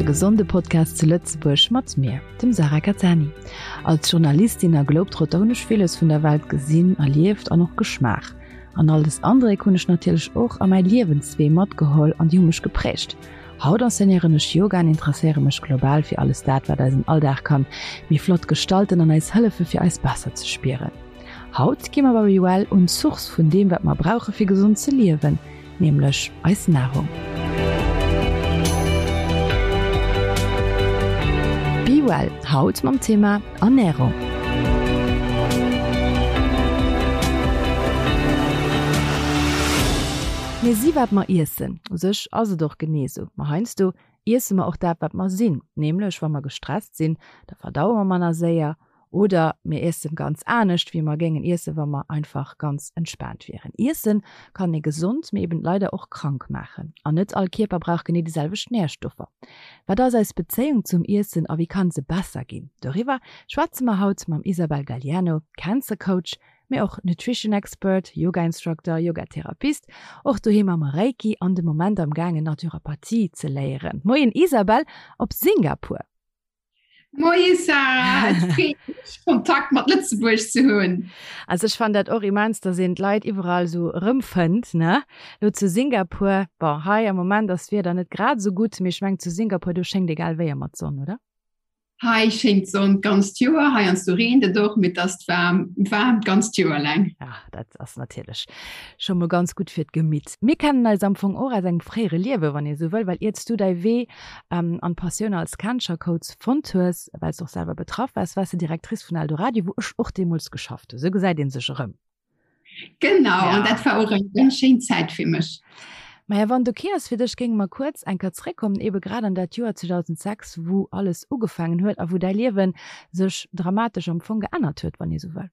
de gesonde Podcast zu Lëtzebuerg mat mir, dem Sarah Cattani. Als Journalistin a Globetrotter hunn ech villes vun der Welt gesinn, erlieft an och geschmaach. An all des Andréck hunn ech natierlech och a mäi Liewenswee matgeholl an déi hu mech geprägt. Haut enseignéieren ech Yoga an interesséiere mech global fir alles dat, wat eisen Alldag kann méi flott gestalten an eis hëllefe fir eis besser ze spieren. Haut gi mer bei BeWell un d'Source vun deem wat mer brauche fir gesond ze liewen, nämlech eis Nahrung. BeWell, haut mam Thema Ernährung. Mir si wat mer iessen. U sech ass et och genee esou. Ma heiansdo iesse mer och dat wat mer sinn. Nämlech wa mer gestresst sinn, da verdaue mer manner séier Oder mir iessen ganz anescht, wéi mer géingen iessen, wa mer einfach ganz entspaant wieren. Iessen kann ee gesond, mee eben leider och krank maachen. An net all Kierper brauch genee déi selwecht Närstoffer. Wat ass eis Bezéiung zum Iessen a wéi kann se besser ginn? Doriwwer schwätze mer haut mam Isabel Galiano, Cancer Coach, mee och Nutrition Expert, Yoga Instructor, Yoga Therapist, och doheem am Reiki an de Moment am gaangen Naturopathie ze léieren. Moien Isabel op Singapur! Moie Sarah, et freet mech Kontakt mat Lëtzebuerg ze hunn. Also ech fannen dat och immens, dass een d'Leit iwwerall esou erëmfënnt, ne? Lo zu Singapur, bon hei am Moment ass d'Wieder net grad esou gutt, mee ech mengen zu Singapur do schéngt egal wéi ëmmer d'Sonn, oder? Hei schéngt d'Sonn d'ganzt Joer, heiansdo reent et och, mee et ass waarm, waarm d'ganzt Joer laang. Ja, dat ass natierlech scho mol ganz gutt fir d'Gemitt. Mir kennen eis am Fong och aus engem fréiere Liewen, wann ee sou wëll, well iert s du däi Wee an d'Passioun als Cancer-Coach fonnt hues, well s de och selwer betraff waars, waars de Directrice vun Eldoradio, wou ech och deemools geschafft hunn. Sou gesäit ee sech erëm. Genau, an dat war och eng ganz schéin Zäit fir mech. Maja, wann et ok ass fir dech, géinge mer kuerz eng Kéier zréckkommen, ebe grad an dat Joer 2006, wou alles ugefaangen huet a wou däi Liewe sech dramatesch am Fong geännert huet, wann ee sou wëll.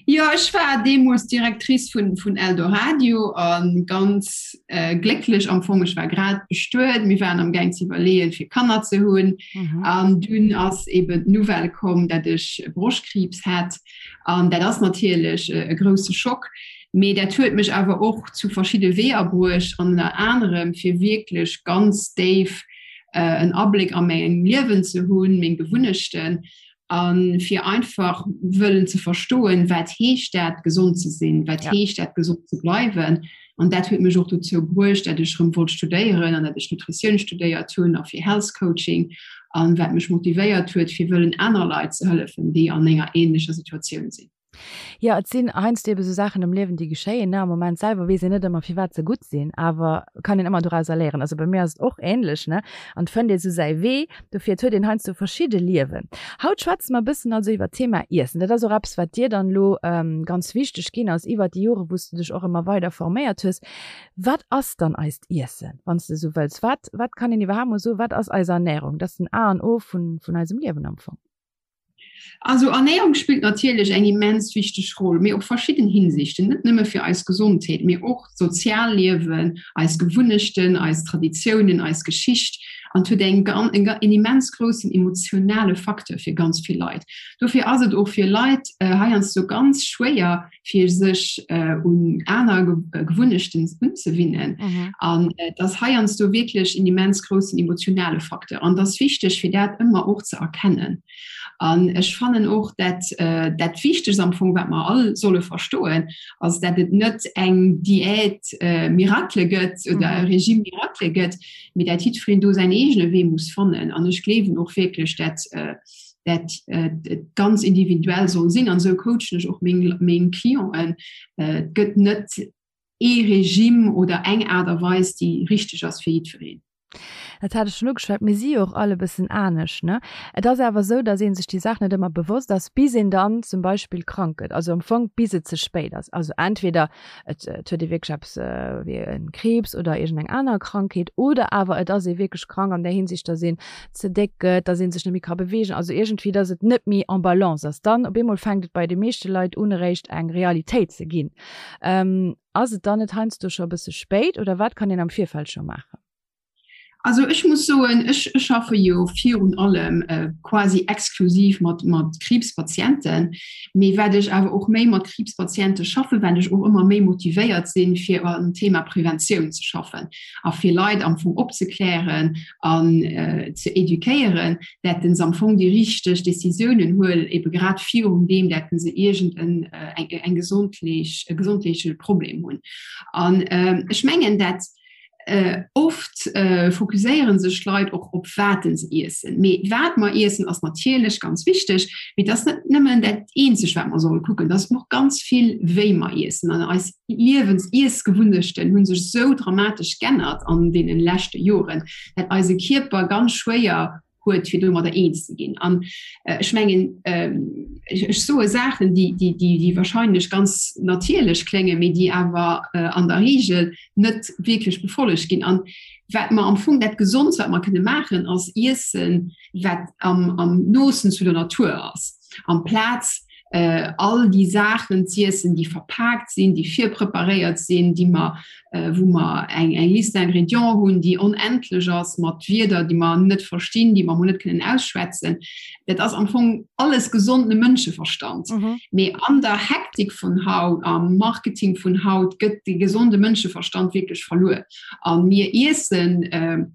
Jo, ech war deemools Directrice vun, vun Eldoradio a ganz äh, glécklech am Fong. Ech war grad bestuet, mir waren am Gaang ze iwwerleeën, fir Kanner ze hunn. Mhm. An dunn ass eben d'Nouvelle komm, dat ech Broschtkriibs hat. An dat ass natierlech äh, e grousse Schock. Mee dat huet mech awer och zu verschidde Weeër bruecht an ënner anerem fir wierklech ganz déif äh, en Abléck a mengem Liewen ze hunn, meng Gewunnechten a fir einfach wëllen ze verstoen, wat heescht dat gesond ze sinn, wat heescht dat gesond ze bleiwen. An dat huet mech och dozou bruecht, dat ech rëm wollt studéieren an dat ech Nutritioun studéiert hunn a fir Health Coaching an wat mech motivéiert huet, fir wëllen aner Leit ze hëllefen, déi an enger ähnlecher Situatioun sinn. Jo, et sinn heiansdo ebe sou Saachen am Liewen, déi geschéien, ne. Am Moment selwer weess een net ëmmer, firwat se gutt sinn, awer kann een ëmmer dorauser léieren. Also bei mir ass et och änlech, ne. An et fënnt ee sou säi Wee. Dofir, et huet een heiansdo verschidde Liewen. Haut schwätze mer e bëssen also iwwer d'Thema Iessen. Dat ass och eppes, wat dir dann elo ganz wichteg ginn ass iwwer déi Jore, wou s de dech och ëmmer weider forméiert hues. Wat ass dann eist Iessen, wann s de esou wëlls? Wat, wat kann een iwwerhaapt mol soen, wat ass eis Ernährung? Dat ass den A an O vun, vun eisem Liewen am Fong. Also Ernährung spillt natierlech eng immens wichteg Roll, mee op verschidden Hinsichten, net nëmme fir eis Gesondheet, mee och d'Sozialliewen, eis Gewunnechten, eis Traditiounen, eis Geschicht an et huet eng en immens groussen emotionale Facteur fir ganz vill Leit. Dofir ass et och fir Leit heiansdo ganz schwéier, fir sech un aner Gewunnechten unzewinnen. An et ass heiansdo wierklech en immens groussen emotionale Facteur. An et ass wichteg, fir dat ëmmer och ze erkennen. An ech fannen och, dat dat Wichtegst am Fong, wat mer all solle verstoen, ass, dat et net eng Diät miracle gëtt oder e Régime miracle gëtt, mee dat jiddwereen do säin eegene Wee muss fannen. An ech gleewen och wierklech, dat dat et ganz individuell soll sinn. An esou coachen ech och meng, meng Clienten. Et gëtt net ee Regime oder eng Aart a Weis, déi richteg ass fir jiddwereen. Dat hat ech schonn ugeschwat, mir si jo och all e bëssen anescht, ne? Et ass awer esou, datt ee sech déi Saach net ëmmer bewosst ass, bis een dann zum Beispill krank gëtt, also am Fong bis et ze spéit ass. Also entweder et huet ee wierklech eppes wéi e Kriibs oder iergendeng aner Krankheet oder awer et ass ee wierklech krank an där Hinsicht, datt een ze déck gëtt, datt ee sech net méi ka beweegen, also iergendwéi, datt et net méi en balance ass. Dann op eemol fänkt et bei de meeschte Leit un eréischt eng Realitéit ze ginn. Ass et dann net heiansdo scho e bësse spéit oder wat kann een am Virfeld scho maachen? Also ech muss soen, ech schaffe jo virun allem quasi exklusiv mat mat Kriibspatienten. Mee wat ech awer och méi mat Kriibspatiente schaffen, well ech och ëmmer méi motivéiert sinn, fir am Thema Preventioun ze schaffen a fir Leit am Fong opzeklären an ze eduquéieren, dat se am Fong déi richteg Decisiounen huelen, ebe grad virun deem, dat se iergend en eng gesondleech e gesondleeche Problem hunn. An ech mengen, dat Oft fokusséiere sech d'Leit och op wat se iessen. Mee wat mer iessen ass natierlech ganz wichteg, mee et ass net nëmmen dat eenzeg wat mer solle kucken. Et ass och ganz vill wéi mer iessen an eis Liewens Iessgewunnechten hu sech esou dramatesch g'ännert an deenen leschte Joren, dat eise Kierper ganz schwéier huet fir domadder eens ze ginn. An ech mengen ech soe Saachen, déi, déi, déi, déi wahrscheinlech ganz natierlech kléngen, mee déi awer an der Regel net wierklech befollegt ginn. An wat mer am Fong dat Gesondst, wat mer kënne maachen, ass iessen, wat am, am noosten zu der Natur ass, amplaz all déi Saachen z'iessen, déi verpaakt sinn, déi virpreparéiert sinn, déi mer, wou mer eng eng Liste d'ingrédients hunn, déi onendlech ass, mat Wierder, déi mer net verstinn, déi mer emol net kënnen ausschwätzen. Dat ass am Fong alles gesonde Mënscheverstand. Mee an der Hektik vun haut, am Marketing vun haut gëtt de gesonde Mënscheverstand wierklech verluer. A mir iessen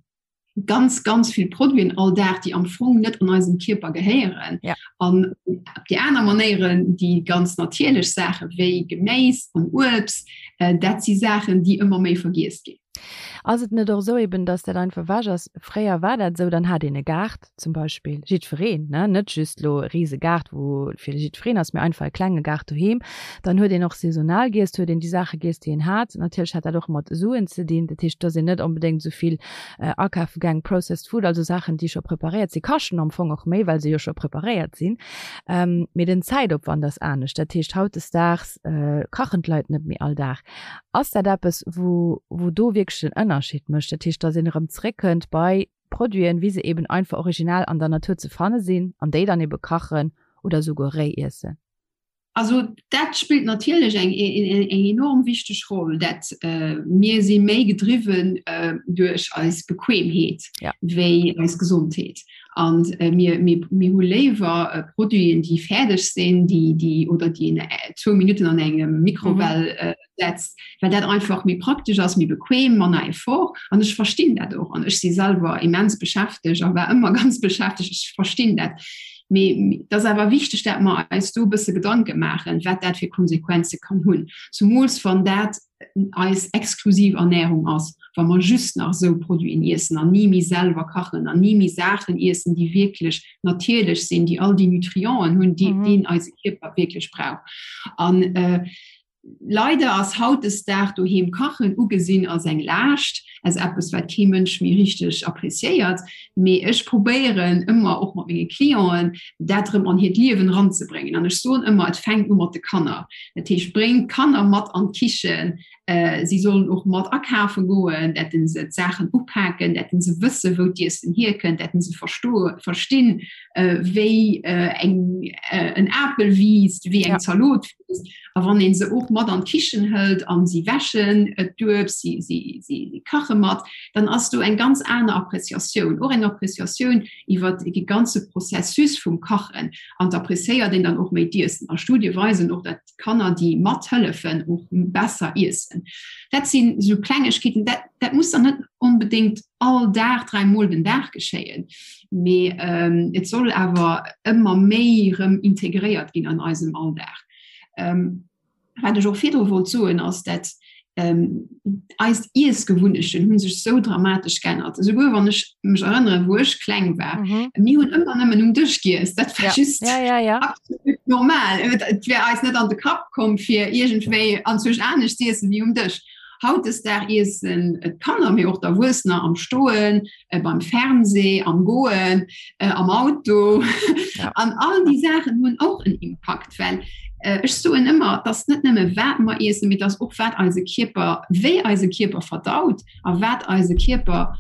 ganz ganz vill Produiten all Dag, déi am Fong net an eisem Kierper gehéieren. Ja. An op déi aner Manéieren, déi ganz natierlech Saache wéi Geméis an Uebst, äh, dat si Saachen, déi ëmmer méi vergiess ginn. Ass et net och esou eben, dass dat einfach ewech ass? Fréier war dat esou, dann hat een e Gaart zum Beispill, jiddwereen, ne, net just elo e rise Gaart, wou fir jiddwereen ass, mee einfach e klenge Gaart doheem. Dann huet een och saisonal giess, huet een déi Saache giess, déi een hat. Natierlech hat dat och mat Suen ze dinn, dat heescht, et ass een net onbedéngt esou vill akafe gaang, processed food, also Saachen, déi scho preparéiert sinn, kaschten am Fong och méi, well se jo scho preparéiert sinn. Mee den Zäitopwand ass anescht. Dat heescht, hautdesdaags kachen d'Leit net méi all Dag. Ass dat eppes, wou, wou do wierklech den Ënnerscheed mécht? Dat heescht, datt een erëm zréckkënnt bei Produiten, wéi se eben einfach original an der Natur ze fanne sinn, an déi dann ebe kachen oder esouguer réi iessen? Also dat spillt natierlech eng eng enorm wichteg Roll, dat mir si méi gedriwwen duerch eis Bequemheet ja. wéi eis Gesondheet. An mir, mir, mir hu léiwer Produiten, déi fäerdeg sinn, déi, déi oder déi een zwou Minutten an engem Mikrowell mhm. setzt, well dat einfach méi praktesch ass, méi bequem, manner Effort. An ech verstinn dat och. An ech si selwer immens beschäftegt a war ëmmer ganz beschäftegt. Ech verstinn dat. Mee et ass awer wichteg, dat mer eis do e bësse Gedanke maachen, wat dat fir Konsequenze kann hunn. Zumools wann dat eis exklusiv Ernährung ass, wa mer just nach esou Produiten iessen an ni méi selwer kachen an ni méi Saachen iessen, déi wierklech natierlech sinn, déi all déi Nutrienten hunn, déi deen eise Kierper wierklech brauch. An Leider ass hautdesdag doheem kachen ugesinn als eng Laascht, als eppes wat kee Mënsch méi richteg appreciéiert. Mee ech probéieren ëmmer och mat menge Clienten dat erëm an hiert Liewen eranzebréngen. An ech soen ëmmer, et fänkt u mat de Kanner. Dat heescht, bréngt d'Kanner mat an d'Kichen, si sollen och mat akafe goen, dat se d'Saachen upaken, dat se wësse wou d'Iessen hierkënnt, dat se verstoe verstinn wéi eng en Apel wiisst, wéi eng Zalot wiisst. A wann een se och mat an d'Kichen hëlt an si wäschen d'Uebst, si, si, si kache mat, dann ass do eng ganz aner Appreciatioun, och eng Appreciatioun iwwer de ganze Processus vum Kachen. An d'appreciéiert een dann och méi d'Iessen. A Studie weisen och, dat Kanner, déi mathëllefen, och besser iessen. Dat sinn esou Klengegkeeten, dat, dat muss dann net onbedéngt all Dag, dräimol den Dag geschéien, mee et soll awer ëmmer méi erëm integréiert ginn an eisem Alldag. Wat ech och virdru wollt soen, ass, dat eis Iessgewunnechten hu sech esou dramatesch geännert. Esouguer wann ech mech erënneren, wou ech kleng war, mir hunn ëmmer nëmmen um Dësch giess. Dat war just absolut normal. Et wär eis net an de Kapp komm, fir iergendwéi anzwousch anescht z'iessen wéi um Dësch. Hautdesdag iessen d'Kanner, mee och d'Erwuessener am Stoen, beim Fernseh, am Goen, am Auto. Ja. An all déi Saachen hunn och en Impakt, well ech soen ëmmer, et ass net nëmme wat mer iessen, mee et ass och wat eise Kierper, wéi eise Kierper verdaut a wat eise Kierper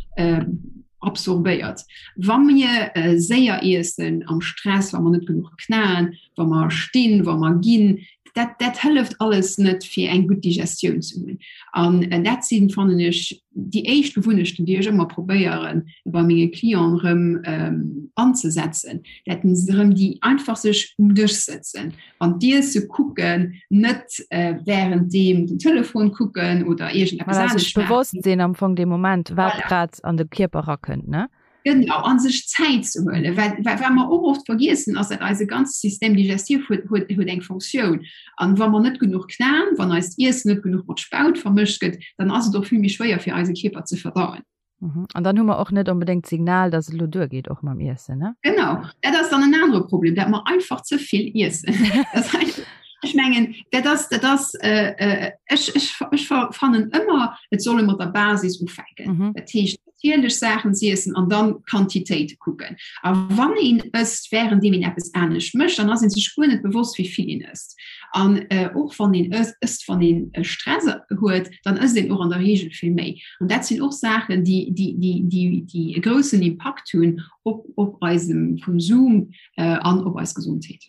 absorbéiert. Wa mir séier iessen, am Stress, wa mer net genuch knaen, wa mer stinn, wa mer ginn, Dat, dat hëlleft alles net fir eng gutt Digestioun ze hunn. An äh, dat sinn fannen ech déi éischt Gewunnechten, déi ech ëmmer probéieren bei menge Clienten erëm ähm, anzesetzen, dat se erëm déi einfach sech um Dësch sëtzen an d'Iesse kucken, net äh, während deem den Telefon kucken oder iergendeppes Voilà, sech anescht maachen. bewosst sinn am Fong dee Moment, wat Voilà. grad an de Kierper rakënnt, ne? Genau, an sech Zäit ze huelen. Well wat mer och oft vergiessen, ass, dat eise ganze Système digestif huet, huet, huet eng Funktioun. An wa mer net genuch knaen, wann eist Iessen net genuch mat Spaut vermëscht gëtt, dann ass et och vill méi schwéier fir eise Kierper ze verdauen. Mhm. An dann hu mer och net onbedéngt d'Signal, dass et elo duergeet och mam Iessen, ne? Genau, dat ass dann en anere Problem, dat mer einfach ze vill iessen. Dat ass Ech mengen, dat ass, dat ass, äh, äh, ech, ech, ech fannen ëmmer, et soll ee mat der Basis ufänken. Mhm. Dat heescht, natierlech Saachen z'iessen an dann d'Quantitéit kucken. A wann een ësst, wärenddeem een eppes anescht mécht, dann ass een sech guer net bewosst, wéi vill een ësst. An äh, och wann een ësst, wann een äh, Stress huet, dann ësst een och an der Reegel vill méi. An dat sinn och Saachen, déi, déi, déi, déi, déi e groussen Impakt hunn op, op eisem Konsum an op eis Gesondheet.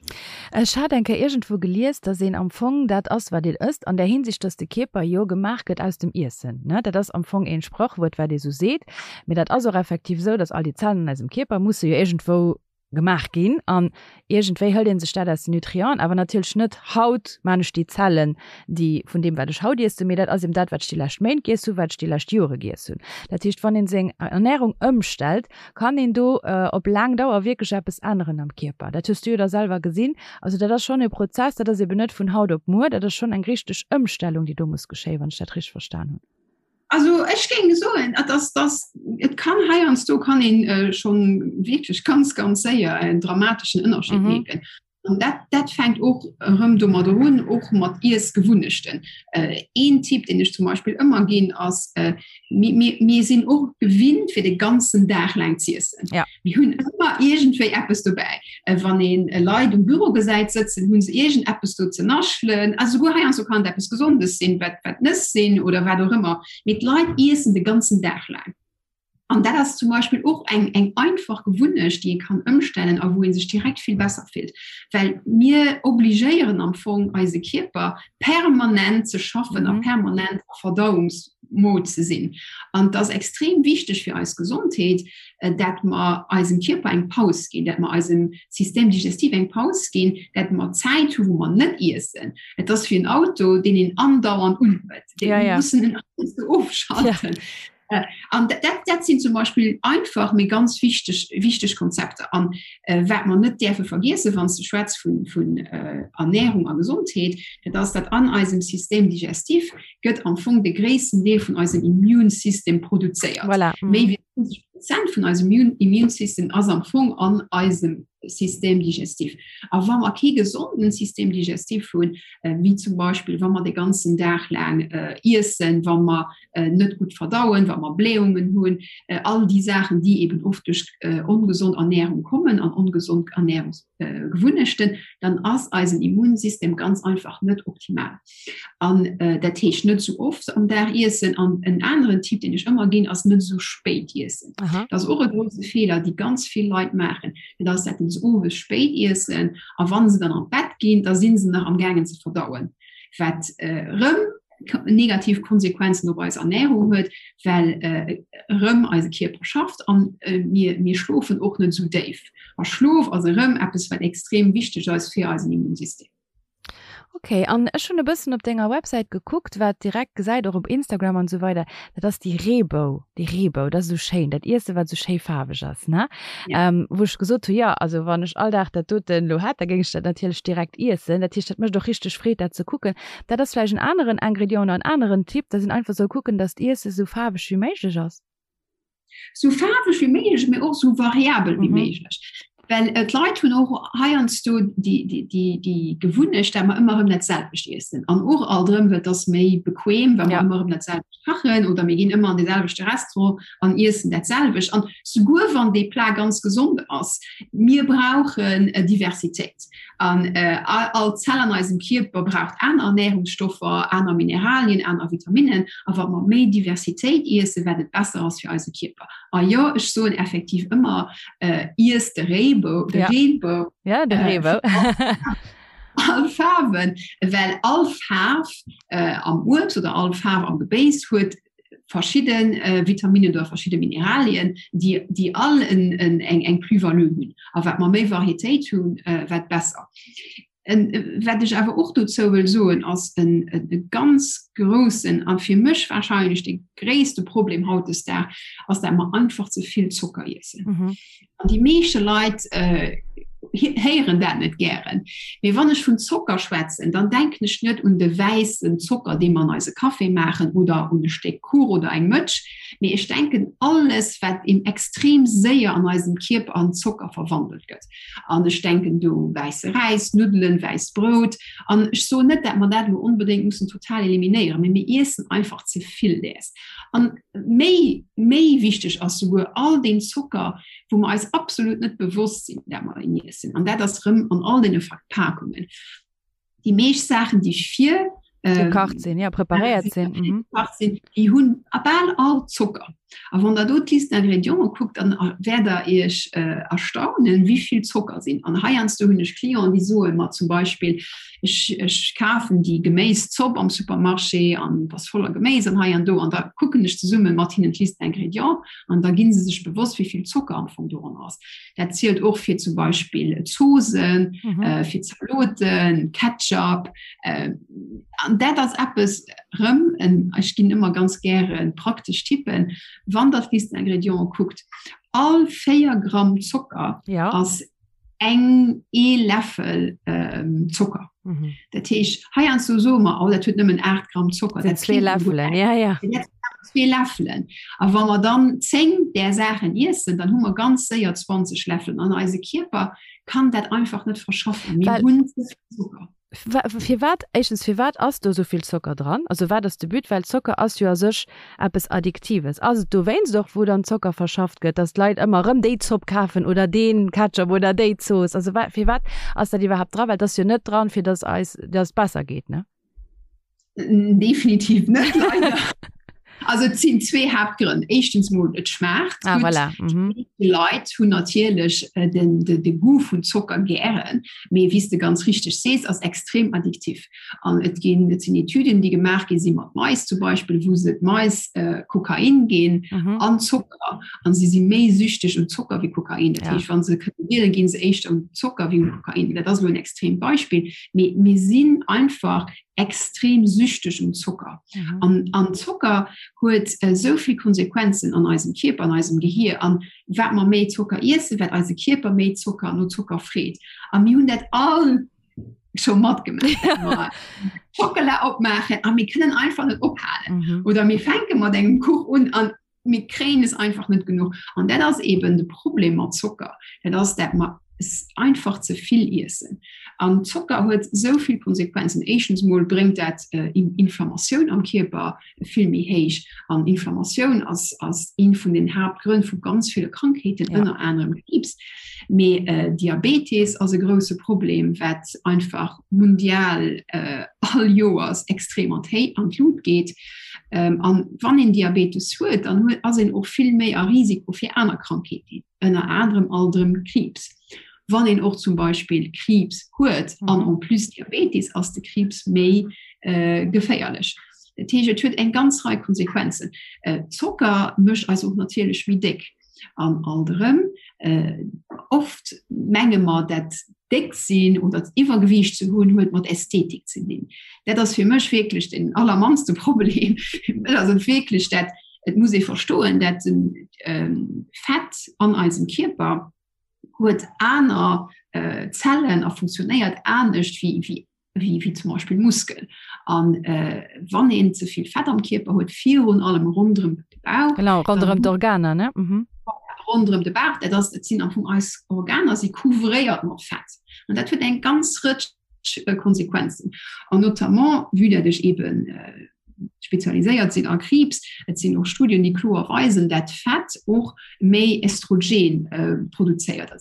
Ech hat eng Kéier iergendwou gelies, dass een am Fong dat ass, wat een ësst, an där Hinsicht, dass de Kierper jo gemaach gëtt aus dem Iessen. Ne, dat ass am Fong een Sprachwuert, wat ee sou seet, mee dat ass och effektiv esou, dass all déi Zellen an eisem Kierper musse jo iergendwou gemaach ginn an iergendwéi hëlt ee sech dat aus den Nutrienten, awer natierlech net haut maan ech déi Zellen, déi vun deem wat ech haut iessen, mee dat ass eben dat, wat ech déi lescht Méint giess hunn, wat ech déi lescht Jore giess hunn. Dat heescht, wann een seng Ernährung ëmstellt, Kann een do op laang Dauer wierklech eppes änneren am Kierper? Dat hues du jo da selwer gesinn. Also dat ass schonn e Prozess, dat ass eben net vun haut op muer, dat ass schonn eng richteg Ëmstellung, déi do muss geschéien, wann ech dat richteg verstan hunn. Also ech géing soen, et ass, dass, et kann heiansdo kann een schonn wierklech ganz, ganz séier en dramateschen Ënnerscheed mierken. An dat, dat fänkt och erëm domadder un, och mat Iessgewunnechten. Äh, een Tipp, deen ech zum Beispill ëmmer ginn, ass, äh, mir, mir, mir sinn och gewinnt, fir de ganzen Dag laang z'iessen. Ja. Mir hunn ëmmer iergendwéi eppes dobäi. Äh, wann een äh, Leit um Büro gesäit sëtzen, hunn se iergendeppes do ze naschelen. Also souguer heiansdo kann et eppes Gesondes sinn, wat, wat Nëss sinn oder wat och ëmmer. Mee d'Leit iessen de ganzen Dag laang. An dat ass zum Beispill och eng, eng einfach Gewunnecht, déi ee kann ëmstellen a wou ee sech direkt vill besser fillt. Well mir obligéieren am Fong eise Kierper permanent ze schaffen a mhm. permanent a Verdauungsmode ze sinn. An dat ass extrem wichteg fir eis Gesondheet, äh, dat mer eisem Kierper eng Paus ginn, dat mer eisem System digestif eng Paus ginn, dat mer Zäit hu wou mer net iessen. Et ass wéi en Auto, deen een andauernd unhuet. Dee ja, ja. mussen en ofschalten. Ja. Äh, an dat, dat sinn zum Beispill einfach mee ganz wichteg wichteg Konzepter an äh, wat mer net däerfe vergiessen, wann s de schwätz vun vun äh, Ernährung a Gesondheet, dat ass dat an eisem System digestif gëtt am Fong de gréissten Deel vun eisem Immunsystem produzéiert. Voilà. Mhm. Méi wéi 50 Prozent vun eisem Immun Immunsystem ass am Fong an eisem System digestif. A wa mer kee gesonden System digestif hunn, äh, wéi zum Beispill wa mer de ganzen Dag laang äh, iessen, wa mer äh, net gutt verdauen, wa mer Blähungen hunn, äh, all déi Saachen, déi eben oft duerch äh, ongesond Ernährung kommen an ongesond Ernährungsgewunnechten, dann ass eisen Immunsystem ganz einfach net optimal. An äh, dat heescht net sou oft am Dag iessen an en aneren Tipp, deen ech ëmmer ginn, ass net sou spéit iessen. Aha. Dat ass och e grouse Feeler, déi ganz vill Leit maachen, dat ass, dat se owes spéit iessen a wann se dann an d'Bett ginn, da sinn se nach am gaangen ze verdauen, wat äh, rëm negativ Konsequenzen op eis Ernährung huet, well erëm eise Kierper schafft an mir, mir schlofen och net esou déif. A Schlof ass erëm eppes, wat extrem wichteg ass fir eisen Immunsystem. Ok, an ech hunn e bëssen op denger Websäit gekuckt, wat direkt gesäit, och op Instagram an esou weider, dat ass déi Reebou, déi Reebou, dat ass esou schéin, dat Iesse wat esou schéi faarweg ass, ne? Ja. Wou ech gesot hu, jo, also wann ech all Dag dat doten elo hätt, da géing ech dat natierlech direkt iessen. Dat heescht, dat mécht och richteg Freed dat ze kucken. Dat ass vläicht en aneren Ingrédient oder en aneren Tipp, dass een einfach soll kucken, dass d'Iesse sou faarweg wéi méiglech ass. Sou faarweg wéi méiglech, mee och sou variabel wéi méiglech. Well d'Leit hunn och heiansdo déi Gewunnecht, dat mer ëmmer erëm dat selwecht iessen. An och alt erëm, well et ass méi bequem, wa mer ëmmer erëm dat selwecht kachen oder mir ginn ëmmer an dee selwechte Restaurant an iessen dat selwecht. An souguer wann dee Plat ganz gesond ass, mir brauchen Diversitéit. An all Zell an eisem Kierper braucht aner Ernährungsstoffer, aner Mineralien, aner Vitaminnen. A wa mer méi Diversitéit iessen, wat et besser ass fir eise Kierper. A jo, ech soen effektiv ëmmer, iess de Reebou, de Reebou. Ja, de Reebou. All Faarwen, well all Faarf äh, am Uebst oder all Faarf am Gebéis huet verschidden äh, Vitaminen oder verschidde Mineralien, déi, déi all en, en, eng, eng Plus-value hunn. A wat mer méi Varietéit hunn, äh, wat besser. En, wat ech awer och dozou wëll soen, ass en, en, e ganz groussen a fir mech wahrscheinlech de gréisste Problem hautdesdag ass, dat mer einfach ze vill Zocker iessen. Mhm. An déi meeschte Leit äh, héieren dat net gären. Mee wann ech vun Zocker schwätzen, dann denken ech net un de wäissen Zocker, dee mer an eise Café maachen oder un e Stéck Kuch oder eng Mëtsch, mee ech denken alles, wat eben extrem séier an eisem Kierper an Zocker verwandelt gëtt. An ech denken do wäisse Räis, Nuddelen, wäisst Brout. An ech soen net, dat mer dat elo onbedéngt mussen total eliminéieren, mee mir iessen einfach ze vill däers. An méi, méi wichteg ass souguer all deen Zocker, wou mer eis absolut net bewosst sinn, dat mer en iessen. An dat ass rëm an all deene Verpakungen. Déi meescht Saachen, déi vir ähm, gekacht sinn, ja, preparéiert sinn, mhm. sinn, déi hunn a bal all Zocker. A wann der do d'Liste d'ingrédients kuckt, dann wäert der Iech äh, erstaunen, wéi vill Zocker sinn. An heiansdo hunn ech Clienten, déi soe mer zum Beispill, ech, ech kafen déi Geméiszopp am Supermarché an ass voller Geméis an hei an do an da kucken ech zesumme mat hinnen d'Liste d'ingrédients an da ginn se sech bewosst, wéi vill Zocker am Fong doran ass. Dat zielt och fir zum Beispill Zosen, mhm. äh, fir Zaloten, Ketchup. Äh, an dat ass eppes rëm, en, ech ginn ëmmer ganz gäre praktesch Tippen, wann der d'Liste d'ingrédients kuckt, all 4 Gramm Zocker ja. ass eng ee Läffel ähm, Zocker. Mhm. Dat heescht heiansdo soe mer, oh, dat huet nëmmen 8 Gramm Zocker. Dat zwee Läffelen, ja, ja. Zwee Läffelen. A wa mer dann 10 där Saachen iessen, dann hu mer ganz séier 20 Läffelen. An eise Kierper kann dat einfach net verschaffen. Mir hunn ze vill Zocker. Firwat, éischtens, firwat ass do esou vill Zocker dran? Also wat ass de But? Well Zocker ass jo a sech eppes Addiktives. Ass et dowéinst och, wou dann Zocker verschafft gëtt, datt d'Leit ëmmer erëm déi Zopp kafen oder dee Ketchup oder déi Zooss? Also firwat ass dat iwwerhaapt dran? Well et ass jo net dran, fir datt eis, datt et besser geet, ne? Definitiv net, leider. Also et sinn zwee Haaptgrënn. Éischtens mol et schmaacht ah, gutt. Voilà. Mhm. Die Leit hunn natierlech äh, den, de, de Goût vun Zocker gären, mee wéi s de ganz richteg sees, ass extrem addiktiv. An et ginn et sinn Etüden, déi gemaach gi si mat Mais zum Beispill, wou se d'Mais äh, Kokain ginn mhm. an Zocker an si si méi süchteg un Zocker wéi Kokain. Dat ja. heescht, wann se kënnen wielen, ginn se éischter un Zocker wéi un Kokain. Dat ass lo en extremt Beispill. Mee mir sinn einfach extrem süchteg un Zocker. Mhm. An, an Zocker huet äh, souvill Konsequenzen an eisem Kierper, an eisem Gehir. An wat mer méi Zocker iessen, wat eise Kierper méi Zocker no Zocker freet. A mir hunn dat all scho matgemaach. Schockela opmaachen a mir kënnen einfach net ophalen. Mhm. Oder mir fänke mat engem Kuch un an mir kréien es einfach net genuch. An dat ass eben de Problem mat Zocker. Dat ass dat mer es einfach ze vill iessen. An Zocker huet sou vill Konsequenzen. Éischtens mol bréngt dat äh, Inflammatioun am Kierper vill méi héich. An Inflammatioun ass, ass een vun den Haaptgrënn vu ganz ville Krankheeten, ja. ënner anerem Kriibs. Mee äh, Diabetes ass e grousse Problem, wat einfach mundial äh, all Joers extrem an d'Lut geet. Ähm, an wann een Diabetes huet, dann huet, ass een och vill méi a Risiko fir aner Krankheeten, ënner anerem alt erëm Kriibs. Wann een och zum Beispill Kriibs huet mhm. an en plus Diabetes, ass de Kriibs méi äh, geféierlech. Dat heescht, et huet eng ganz Rei Konsequenzen. Äh, Zocker mécht eis och natierlech méi déck. An alt erëm, äh, oft menge mer, dat déck sinn oder Iwwergewiicht ze hunn, huet mat Ästhetik ze dinn. Dat ass fir mech wierklech den allermannste Problem. Et ass et wierklech dat, et muss ee verstoen, dat den ähm, Fett an eisem Kierper huet aner äh, Zellen a funktionéiert anescht wéi, wéi wéi, wéi zum Beispill Muskel. An äh, wann een ze vill Fett am Kierper huet, virun allem ronderëm de Bauch. Genau, ronderëm d'Organer, ne? Mhm. Ronderëm de Bauch, dat ass, dat sinn am Fong eis Organer, si couvréiert mat Fett. An dat huet eng ganz Rëtsch äh, Konsequenzen. An notamment, vue dat ech eben äh, spezialiséiert sinn a Kriibs. Et sinn och Studien, déi kloer weisen, dat Fett och méi Estrogen äh, produzéiert.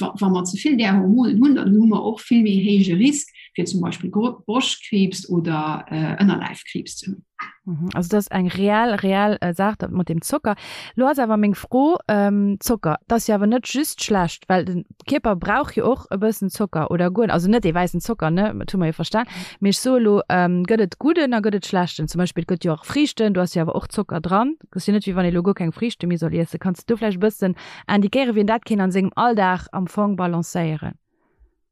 Wa mer ze vill där Hormonen hunn, dann hu mer och vill méi héije Risk fir zum Beispill Broschtkriibs oder äh, Ënnerleifkriibs ze hunn. Mhm. Also dat ass eng reell reell äh, Saach dat mat dem Zocker. Lo ass awer meng Fro ähm, Zocker, dat ass jo awer net just schlecht, well den Kierper brauch jo och e bëssen Zocker oder guer also net dee wäissen Zocker ne, dat hu mer jo verstan. Mee ech soe lo ähm, gëtt et gudden a gëtt et schlechten? Zum Beispill et gëtt jo och Friichten, do ass jo awer och Zocker dran. Et ass jo net wéi wann ee lo guer keng Friichte méi soll iessen. Kanns de do vläicht e bëssen indiquéieren, wéi een dat kéint an sengem Alldag am Fong balancéieren?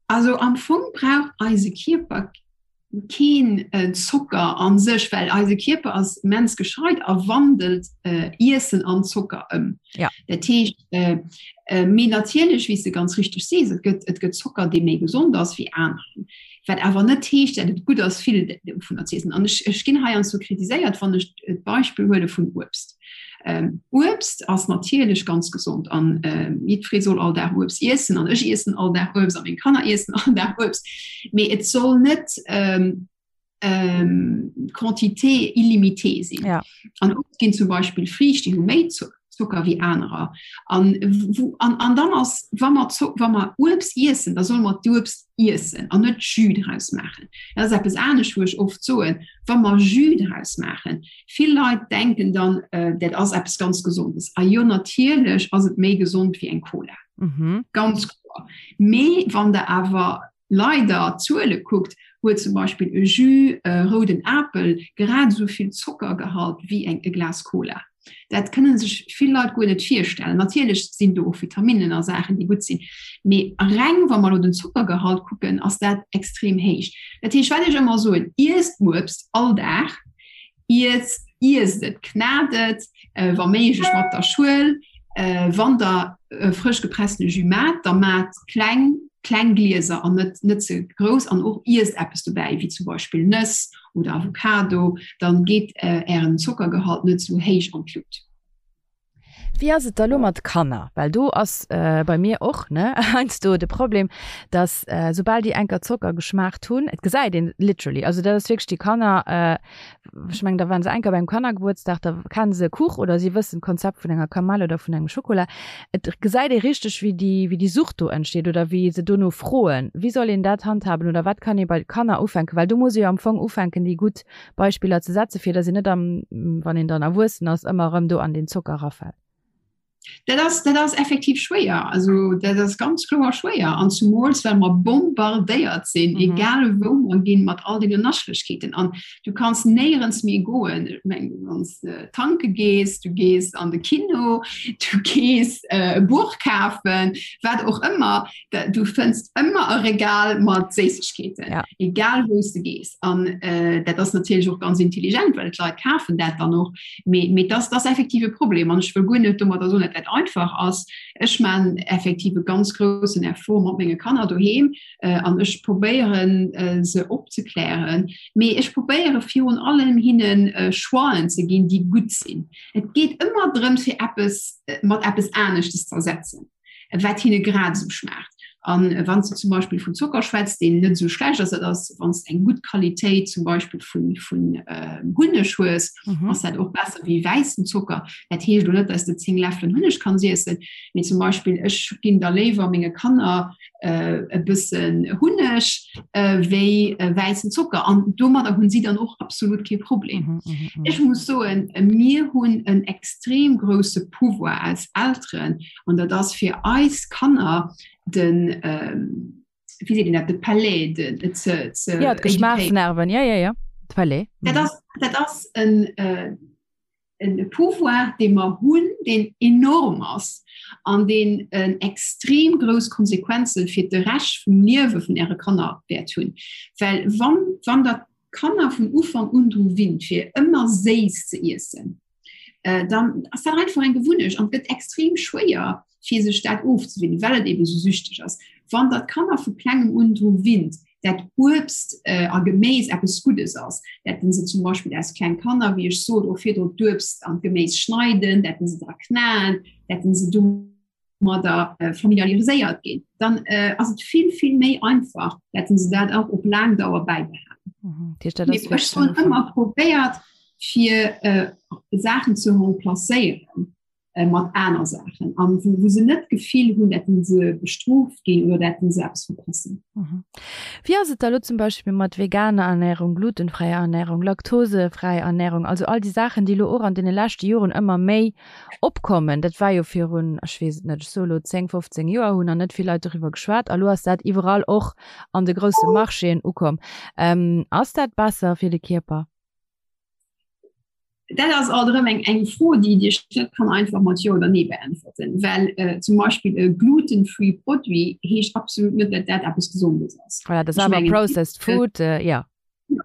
Also am Fong brauch eise Kierper keen Zocker an sech, well eise Kierper ass immens gescheit a wandelt Iessen an Zocker ëm. Ja. Dat heescht, mee natierlech, wéi s de ganz richteg sees, et gëtt, et gëtt Zocker, dee méi gesond ass wéi aneren. Wat awer net heescht, dat et gutt ass, vill dovunner ze iessen. An ech, ech ginn heiansdo kritiséiert, wann ech d'Beispill huele vun Uebst. Uebst ass natierlech ganz gesond an jiddweree soll all Dag Uebst iessen an ech iessen all Dag Uebst a meng Kanner iessen all Dag Uebst. Mee et soll net Quantité illimitée sinn. Ja. An oft ginn zum Beispill Friicht, déi hu méi Zocker wéi anerer. An, wou, an, an dann ass, wa mer, wa mer Uebst iessen, da solle mer d'Uebst iessen an net Jus draus maachen. Dat ass eppes anescht, wou ech oft soen, wa mer Jus draus maachen, Vill Leit denken dann, dat ass eppes ganz Gesondes. A jo, natierlech ass et méi gesond wéi eng Cola. Mhm. Ganz kloer. Mee wann der awer leider d'Zuele kuckt, huet zum Beispill e Jus rouden Apel grad esou vill Zockergehalt wéi eng e Glas Cola. Dat kënne sech vill Leit guer net virstellen. Natierlech sinn do och Vitaminnen a Saachen, déi gutt sinn. Mee reng wa mer elo den Zockergehalt kucken, ass dat extrem héich. Dat heescht, wat ech ëmmer soen, Iesst Uebst all Dag, Iesst, iesst et, knat et, wa méiglech mat der Schuel. Wann der frësch gepressene Jus maacht, da maacht kleng, kleng Glieser an net, net ze grouss an och iesst eppes dobäi, wéi zum Beispill Nëss oder Avocado, dann geet ären Zockergehalt net sou héich an d'Lut. Wéi ass et da lo mat Kanner? Well do ass bei mir och ne heiansdo de Problem, dass soubal déi enker Zocker geschmaacht hunn, et gesäit een literally, also dat ass wierklech déi Kanner, ech mengen da waren se enker beim Kannergebuertsdag, da kennen se e Kuch oder si wëssen d'Konzept vun enger Kamell oder vun engem Schokola. Et gesäit ee richteg wéi déi wéi déi Sucht do entsteet oder wéi se dono froen. Wéi soll een dat handhaben oder wat kann ee bei Kanner ufänken? Well do muss ee jo am Fong ufänken déi gutt Beispiller ze setzen, fir datt een net am, wann een dann erwuessen ass, ëmmer erëm do an deen Zocker erafält. Dat ass, dat ass effektiv schwéier. Also dat ass ganz kloer schwéier. An zumools well mer bombardéiert sinn, mhm. egal wou mer ginn, mat all deene Naschlechkeeten. An du kanns néierens méi goen. Ech meng, wann s de tanke gees, du gees an de Kino, du gees äh, e Buch kafen, wat och ëmmer. Du fënns ëmmer e Regal mat Séissegkeeten, ja. egal wou s de gees. An äh, dat ass natierlech och ganz intelligent, well d'Leit kafen dat dann och. Mee, mee das, das effektiv e Problem. An ech wëll guer net domadder soen, dat dat einfach ass. Ech man effektiv e ganz groussen Effort mat menge Kanner doheem äh, an ech probéieren äh, se opzeklären. Mee ech probéiere virun allem hinnen äh, Choixen ze ginn, déi gutt sinn. Et geet ëmmer drëm, fir eppes äh, mat eppes aneschtes ze ersetzen. wat hinne grad esou schmaacht. An wann s de zum Beispill vun Zocker schwätz, deen net esou schlecht ass, dat ass, wann s de eng gutt Qualitéit zum Beispill vun, vun Hunneg hues, ass dat och besser wéi wäissen Zocker. Dat heescht elo net, dass de 10 Läffelen Hunneg kanns iessen, mee zum Beispill ech ginn da léiwer menge Kanner e bëssen Hunneg wéi wäissen Zocker. An domadder hunn si dann och absolut kee Problem. Ech muss soen, mir hunn en extrem grousse Pouvoir als Elteren, An dat ass fir eis Kanner den, wéi seet een dat, de Palais, de, ze, ze. Ja, d'Geschmaachsnerven, ja, ja, ja, de Palais. Dat ass, dat ass en, en Pouvoir, dee mer hunn, deen enorm ass an deen en extrem grouss Konsequenze fir de Rescht vum Liewe vun Äre Kanner wäert hunn. Well wann, wann Der d'Kanner vun Ufank un dru winnt, fir ëmmer séiss ze iessen, äh, dann ass dat einfach eng Gewunnecht an gëtt extrem schwéier fir sech dat ofzewinnen, well et eben so süchteg ass. Wann dat Kanner vu klengem un dru winnt, dat Uebst äh, a Geméis eppes Guddes ass, dat se zum Beispill als kleng Kanner, wéi ech sot, och virdru d'Uebst an d'Geméis schneiden, dat se dra knaen, dat se do domadder äh, familiariséiert ginn, dann äh, ass et vill vill méi einfach, dat se dat och op laang Dauer bäibehalen. Mhm. Ech hunn ëmmer probéiert fir äh, Saachen ze remplacéieren. Äh, mat aner Saachen an wou, wou se net d'Gefill hunn, dat se bestrooft ginn oder dat se eppes verpassen. Mhm. Wéi ass et da lo zum Beispill mat veganer Ernährung, glutenfräier Ernährung, laktosefräi Ernährung, also all déi Saachen, déi lo och an deene leschte Joren ëmmer méi opkommen? Dat war jo virun, ech weess et net, ech soe lo 10, 15 Joer hunn nach net vill Leit doriwwer geschwat a lo ass dat iwwerall och an de grousse Marchéen ukomm. Ähm, ass dat besser fir de Kierper? Dat ass alt erëm eng eng Fro, déi Dir net kann einfach mat Jo oder Nee beäntwerten, well äh, zum Beispill e gluten-free Produit heescht absolut net, dat dat eppes Gesondes ass. Voilà, dat ass awer processed food, äh, ja.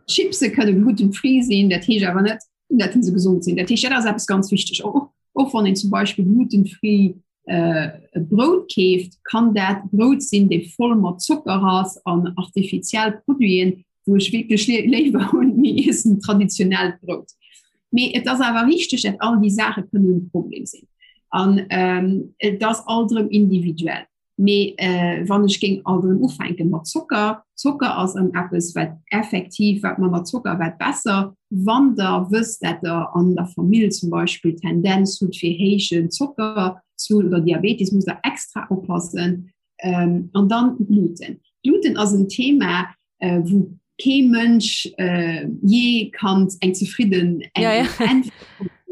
Chipse kënne gluten-free sinn, dat heescht awer net, dat se gesond sinn. Dat heescht, dat ass eppes ganz wichteg. Och, och wann een zum Beispill gluten-free äh, Brout keeft, kann dat Brout sinn, dee voll mat Zocker ass an artifiziell Produiten, wou ech wierklech léiwer hunn, mir iessen traditionellt Brout. Mee et ass awer richteg, dat all déi Saache kënnen e Problem sinn. An ähm, et ass alt erëm individuell. Mee äh, wann ech géing alt erëm ufänken mat Zocker, Zocker ass erëm eppes, wat effektiv, wat manner Zocker, wat besser. Wann der wësst, dat der an der Famill zum Beispill Tendenz hutt fir héijen Zocker ze hunn oder Diabetes, musst der extra oppassen. Ähm, an dann Gluten. Gluten ass en Thema, äh, wou kee Mënsch äh, je kann eng zefridden eng ja, ja.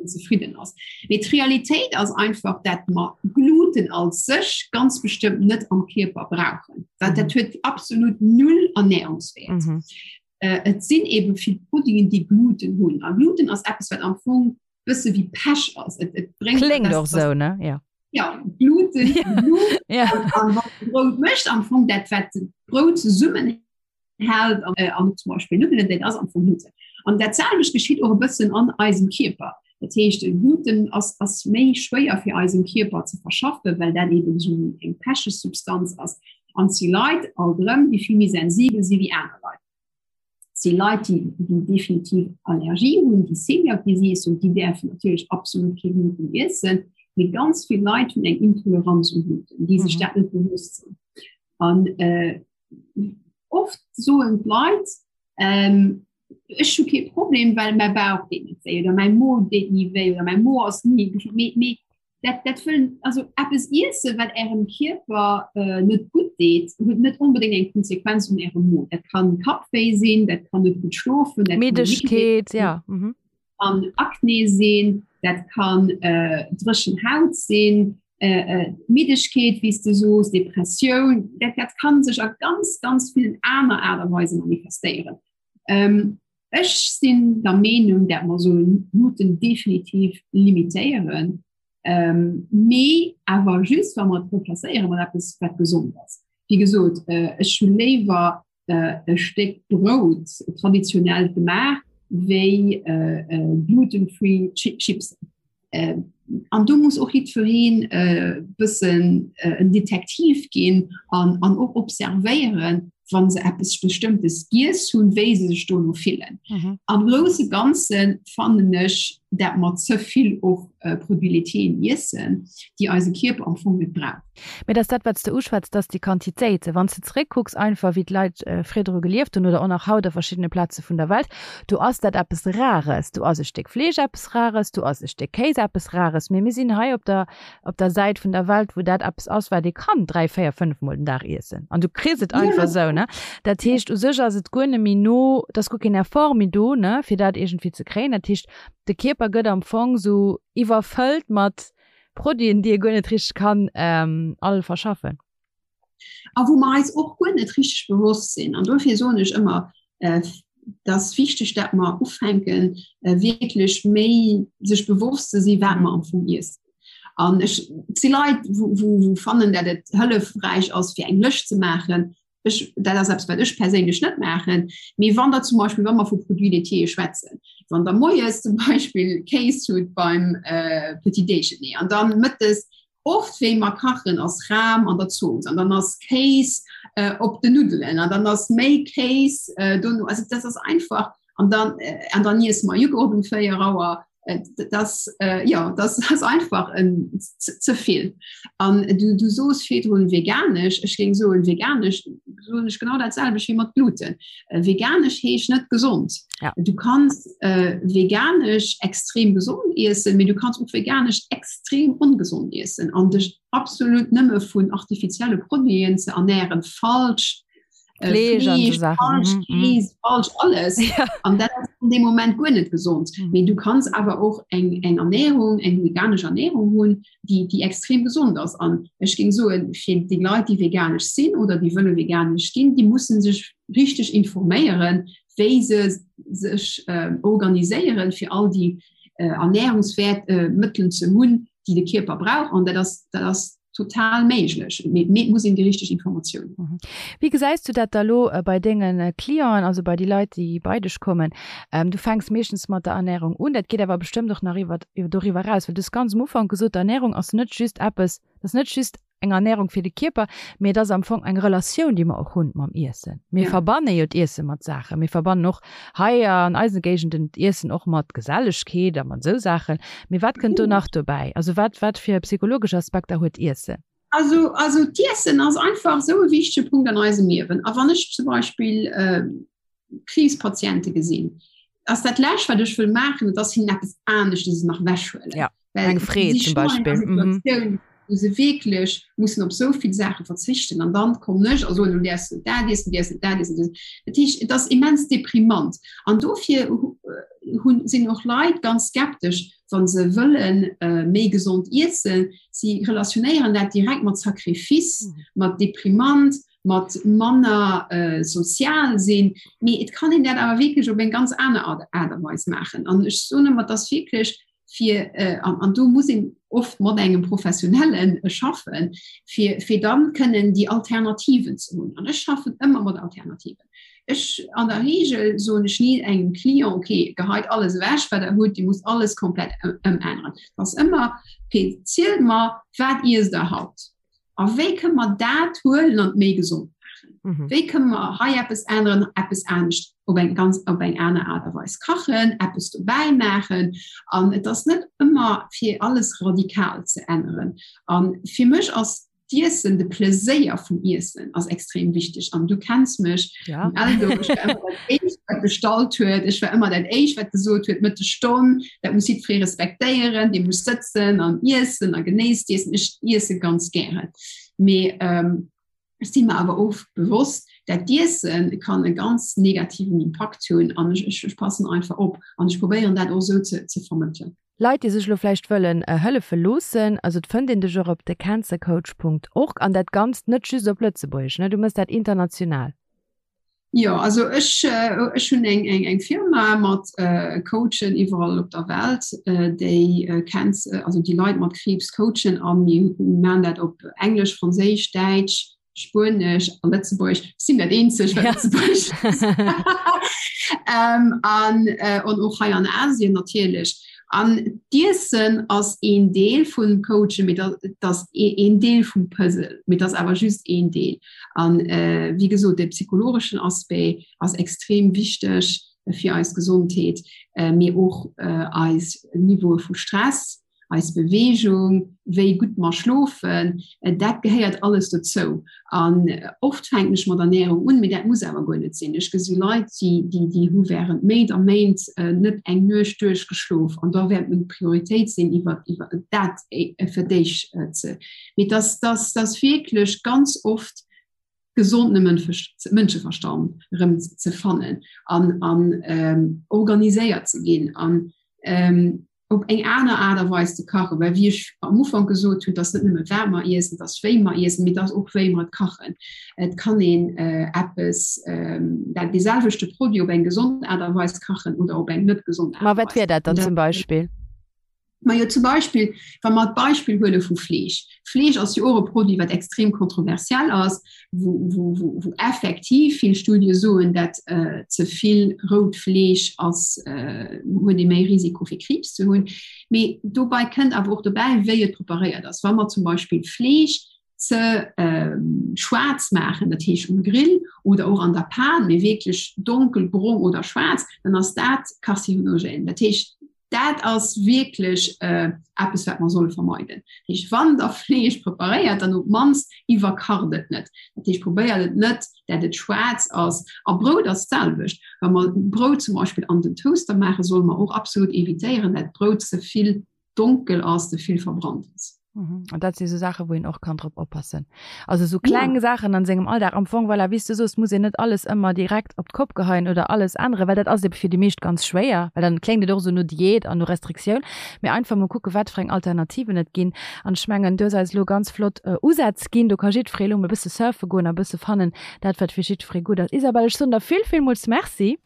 zefridden ass. Mee d'Realitéit ass einfach, dat mer Gluten als sech ganz bestëmmt net am Kierper brauchen. Dat, mhm. dat huet absolut null Ernährungswert. Mhm. Äh, et sinn eben vill Produiten, déi Gluten hunn. A Gluten ass eppes, wat am Fong bësse wéi Pech ass. Et, et bréngt Kléngt och sou, ne? Ja. Ja, Gluten, ja. ja. An, an Brout mécht am Fong dat wat Brout zesummen hält an, äh, an zum Beispiel Nuddelen, dat ass am Fong Gluten. An dat selwecht geschitt och e bëssen an eisem Kierper. Dat heescht Gluten ass, ass méi schwéier fir eisem Kierper ze verschaffen, well dat eben so eng pecheg Substanz ass. An si Leit alt erëm, déi vill méi sensibel si wéi aner Leit. Si Leit, déi, déi definitiv Allergie hunn, déi Celiac Disease hunn, déi däerfen natierlech absolut kee Gluten iessen. Mee ganz vill Leit hunn eng Intoleranz u Gluten, déi sech mhm. dat net bewusst sinn. An äh, oft soen d'Leit, ähm, ech hu kee Problem, well mäi Bauch deet net wéi oder mäi Mo deet ni wéi oder mäi Mo ass ni mee, mee dat, dat wëllen also eppes iesse wat ärem Kierper äh, net gutt deet, huet net onbedéngt eng Konsequenz un ärem Mo. Dat kann Kappwéi sinn, dat kann net gutt schlofen, dat Middegkeet, ja. Mhm. Kann Akne sinn, dat kann äh, dréchen Haut sinn, äh, äh, Middegkeet, wéi s de soos, Depressioun, dat, dat kann sech a ganz, ganz villen aner Aart a Weise manifestéieren. Ähm, ech sinn der Meenung, dat mer sollen Gluten definitiv limitéieren, ähm, mee awer just, wa mer et remplacéiere mat eppes, wat gesond ass. Wéi gesot, äh, ech hu léiwer äh, e Stéck Brout traditionell gemaach, wéi äh, äh, gluten-free Chips. Äh, an do muss och jiddwereen äh, bëssen äh, en Detektiv ginn an, an och observéieren, wann se eppes Bestëmmtes giess hunn, wéi se sech dono fillen. Mhm. Am grousse Ganze fannen ech, dat mer ze vill och äh, Produits laitiers iessen, déi eise Kierper am Fong net braucht. Mee et ass dat, wat s de uschwätz, dass déi Quantitéiten, wann s de zeréckkucks einfach, wéi d'Leit virdru gelieft hunn oder och nach haut a verschiddene Plaze vun der Welt, do ass dat eppes Rares. Do ass e Stéck Fleesch eppes Rares, do ass e Stéck Kéis eppes Rares. Mee mir sinn hei op der, op der Säit vun der Welt, wou dat eppes ass, wat ee kann dräi, véier, fënnefmol den Dag iessen. An du kriss et einfach esou, ne? Dat heescht, u sech ass et guer net méi no, et ass guer keen Effort méi do, ne, fir dat iergendwéi ze kréien. Dat heescht, de Kierper gëtt am Fong esou iwwerfëllt mat Produiten, déi e guer net richteg kann all verschaffen. A wou mer eis och guer net richteg bewosst sinn. An dofir soen ech ëmmer, et ass wichteg, dat mer ufänken, wierklech méi sech bewosst ze sinn, wat mer am Fong iessen. An ech, et si Leit, wou, wou fannen, dat et hëllefräich ass, fir eng Lëscht ze maachen. Ech, dat ass eppes, wat ech perséinlech net maachen. Mee wann der zum Beispill, wa mer vu Produits laitiers schwätzen, wann der moies zum Beispill Kéis hutt beim äh, Petit Déjeuner an dann mëttes oft wéi mer kachen ass Ram an der Zooss an dann ass Kéis äh, op den Nuddelen an dann ass méi Kéis äh, dono. Also das ass einfach an dann, äh, an dann iesse mer Joghurt um 4 Auer. Äh, das, äh, ja, das ass einfach en ze vill. An du, du soos virdrun veganesch, ech géing soen veganesch. soen ech genau dat selwecht wéi mat Gluten. Äh, veganesch heescht net gesond. Ja. Du kanns äh, veganesch extrem gesond iessen, mee du kanns och veganesch extrem ongesond iessen an dech absolut nëmme vun artifizielle Produiten ze ernähren falsch äh, Fleesch, Fleesch, falsch, mhm, mhm. Käse, falsch alles ja. an dat ass an dem Moment guer net gesond. Mhm. Mee du kanns awer och eng eng Ernährung eng veganesch Ernährung hunn, déi déi extrem gesond ass an ech géing soen fir déi Leit déi veganesch sinn oder déi wëlle veganesch ginn, déi mussen sech richteg informéieren, wéi se sech äh, organiséieren fir all déi äh, Ernährungswert äh, Mëttelen ze hunn, déi de Kierper brauch an dat ass dat ass total méiglech. Mee et muss een déi richteg Informatioun hunn. Wéi gesäis du dat da lo bei denge Clienten, also bei déi Leit, déi bei dech kommen? Du fänks meeschtens mat der Ernärung un, dat geet awer bestëmmt och nach iwwer doriwwer eraus, well du hues ganz um Ufank gesot, d'Ernärung ass net just eppes, dat ass net just eng Ernärung fir de Kierper, mee et ass am Fong eng Relatioun, déi mer och hunn mam Iessen. Mir verbanne jo d'Iesse mat Saachen. Mir verbannen och hei an eise Géigenden d'Iessen och mat Gesellegkeet a mat esou Saachen. Mee wat kënnt do nach dobäi? Also wat, wat fir psychologesch Aspekter huet Iessen? Also, also d'Iessen ass einfach esou e wichtege Punkt an eisem Liewen. A wann ech zum Beispill äh, Kriibspatiente gesinn, ass dat Lescht, wat ech wëll maachen, et ass hinnen eppes aneschtes nach wechhuelen. Ja, eng Freed zum Beispill. Mhm. Wou se wierklech mussen op esou vill Saache verzichten an dann kommen ech a soen, du däerfs net dat iessen, du däerfs net dat iessen. Dat heescht, et ass immens deprimant. An dofir hunn, sinn och Leit ganz skeptesch, wa se wëlle méi gesond iessen. Si relationéieren dat direkt mat Sacrifice, mat deprimant, mat manner sozial sinn. Mee et kann een dat awer wierklech op eng ganz aner Aart a Weis maachen. An ech soen ëmmer, et ass wierklech fir, an do muss een oft mat engem Professionelle schaffen, fir, fir dann kënnen déi Alternativen ze hunn. An ech schaffen ëmmer mat Alternativen. Ech, an der Regel soen ech ni engem Client, okay, geheit alles ewech, wat Der hutt, Dir musst alles komplett ëmänneren. Et ass ëmmer, okay, zielt mer, wat iesst Der haut? A wéi kënne mer dat huelen an méi gesond maachen? Mhm. Wéi kënne mer hei eppes änneren, eppes anescht op eng ganz op eng aner Aart a Weis kachen, eppes dobäi maachen? An et ass net ëmmer fir alles radikal ze änneren. An fir mech ass d'Iessen, de Pleséier vum Iessen ass extrem wichteg. An du kenns mech, ja. Also, ech war ëmmer dat éischt, wat bestallt huet. Ech war ëmmer dat éischt, wat gesot huet, Mëttesstonn, dat muss jiddweree respektéieren, dee muss sëtzen an iessen a genéisst iessen. Ech iesse ganz gären. Mee ähm, ech si mer awer och bewosst, dat d'Iesse kann e ganz negativen Impakt hunn an ech, ech, ech passen einfach op an ech probéieren dat och esou ze, ze vermëttelen. Leit, déi sech elo vläicht wëllen hëllefe loossen, also et fënnt een dech och op thecancercoach.org an dat Ganzt net just op Lëtzebuergesch, ne? Du mëss dat international. Jo, also ech, ech hunn eng, eng, eng Firma mat Coachen iwwerall op der Welt, déi Cancer, also déi Leit mat Kriibs coachen a mir maachen dat op Englesch, Franséisch, Däitsch, Spuenesch a Lëtzebuergesch. Ech sinn dat eenzeg, wat Lëtzebuergesch an, an och hei an Asien natierlech. An d'Iessen ass een Deel vum Coachen, mee dat ass een Deel vum Puzzle, mee dat ass awer just een Deel. An wéi gesot, de psychologeschen Aspect ass extrem wichteg fir eis Gesondheet, mee och eis Niveaue vu Stress, eis Beweegung, wéi gutt mer schlofen, dat gehéiert alles dozou. An oft fänken ech mat Ernährung un, mee dat muss awer guer net sinn. Ech gesi Leit, déi, déi, déi hu während Méint a Méint net eng Nuecht duerchgeschlof an da wäert meng Prioritéit sinn, iwwer, iwwer dat fir d'éischt ze. Mee dass, dass, dass wierklech ganz oft gesonde Mënscheverstand erëm ze fannen an, an organiséiert ze ginn an op eng aner Aart a Weis ze kachen, well wéi ech am Ufank gesot hunn, et ass net nëmme wat mer iessen, et ass wéi mer iessen, mee et ass och wéi mer et kachen. Et kann een eppes, dat dee selwechte Produit op eng gesond Aart a Weis kachen oder op eng net gesond Aart a Weis. Ma wat wier dat dann zum Beispill? Majo zum Beispill, wa mer d'Beispill huele vu Fleesch. Fleesch ass jo och e Produit, wat extrem kontroversiell ass, wou, wou, wou, wou effektiv vill Studie soen, dat äh, ze vill rout Fleesch ass, äh, huet ee méi Risiko fir Kriibs ze hunn. Mee dobei kënnt awer och dobäi, wéi et preparéiert ass. Wa mer zum Beispill Fleesch ze äh, schwaarz maachen, dat heescht um Grill oder och an der Pan, mee wierklech donkelbrong oder schwaarz, dann ass dat karzinogen. Dat heescht. Dat ass wierklech eppes, wat mer solle vermeiden. Dat heescht, wann Der Fleesch preparéiert, dann op d'mannst iwwerkacht et net. Dat heescht, probéiert et net, dat et schwaarz ass. A Brout ass d'selwecht. Wa mer Brout zum Beispill an den Toaster maachen, solle mer och absolut evitéieren, dat d'Brout ze vill donkel ass, ze vill verbrannt ass. Mhm. An dat si sou Saachen, wou een och kann drop oppassen. Also sou kleng ja. Saachen an sengem Alldag. Am Fong, voilà, wéi s du soos, muss een net alles ëmmer direkt op d'Kopp geheien oder alles änneren, well dat ass ebe fir déi meescht ganz schwéier, well dann kléngt et och sou no Diät an no Restriktioun. Mee einfach mol kucken, wat fir eng Alternativen et ginn. An ech mengen, du hues eis elo ganz flott äh, Usätz ginn. Do ka jiddweree elo mol e bësse surfe goen a bësse fannen, dat wat fir jiddweree gutt ass. Isabelle, ech soen der vill, villmools Merci.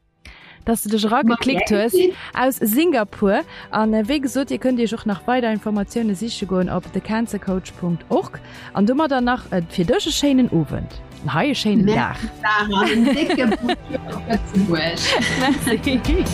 dass du dech erageklickt hues aus Singapur. An äh, wéi gesot, Dir kënnt Iech och nach weider Informatioune siche goen op thecancercoach.org. An domadder nach äh, fir dech e schéinen Owend. An hei e schéinen Dag. Merci.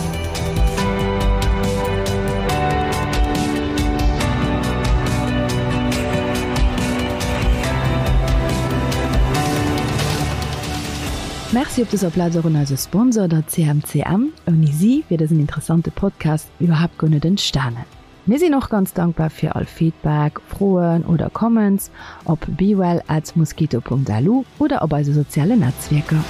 Merci op dëser Plaz och un eise Sponsor, der CMCM. Ouni si wier dësen interessante Podcast iwwerhaapt guer net entstanen. Mir sinn och ganz dankbar fir all Feedback, Froen oder Comments op bewell at mosquito.lu oder op eise sozialen Netzwierker.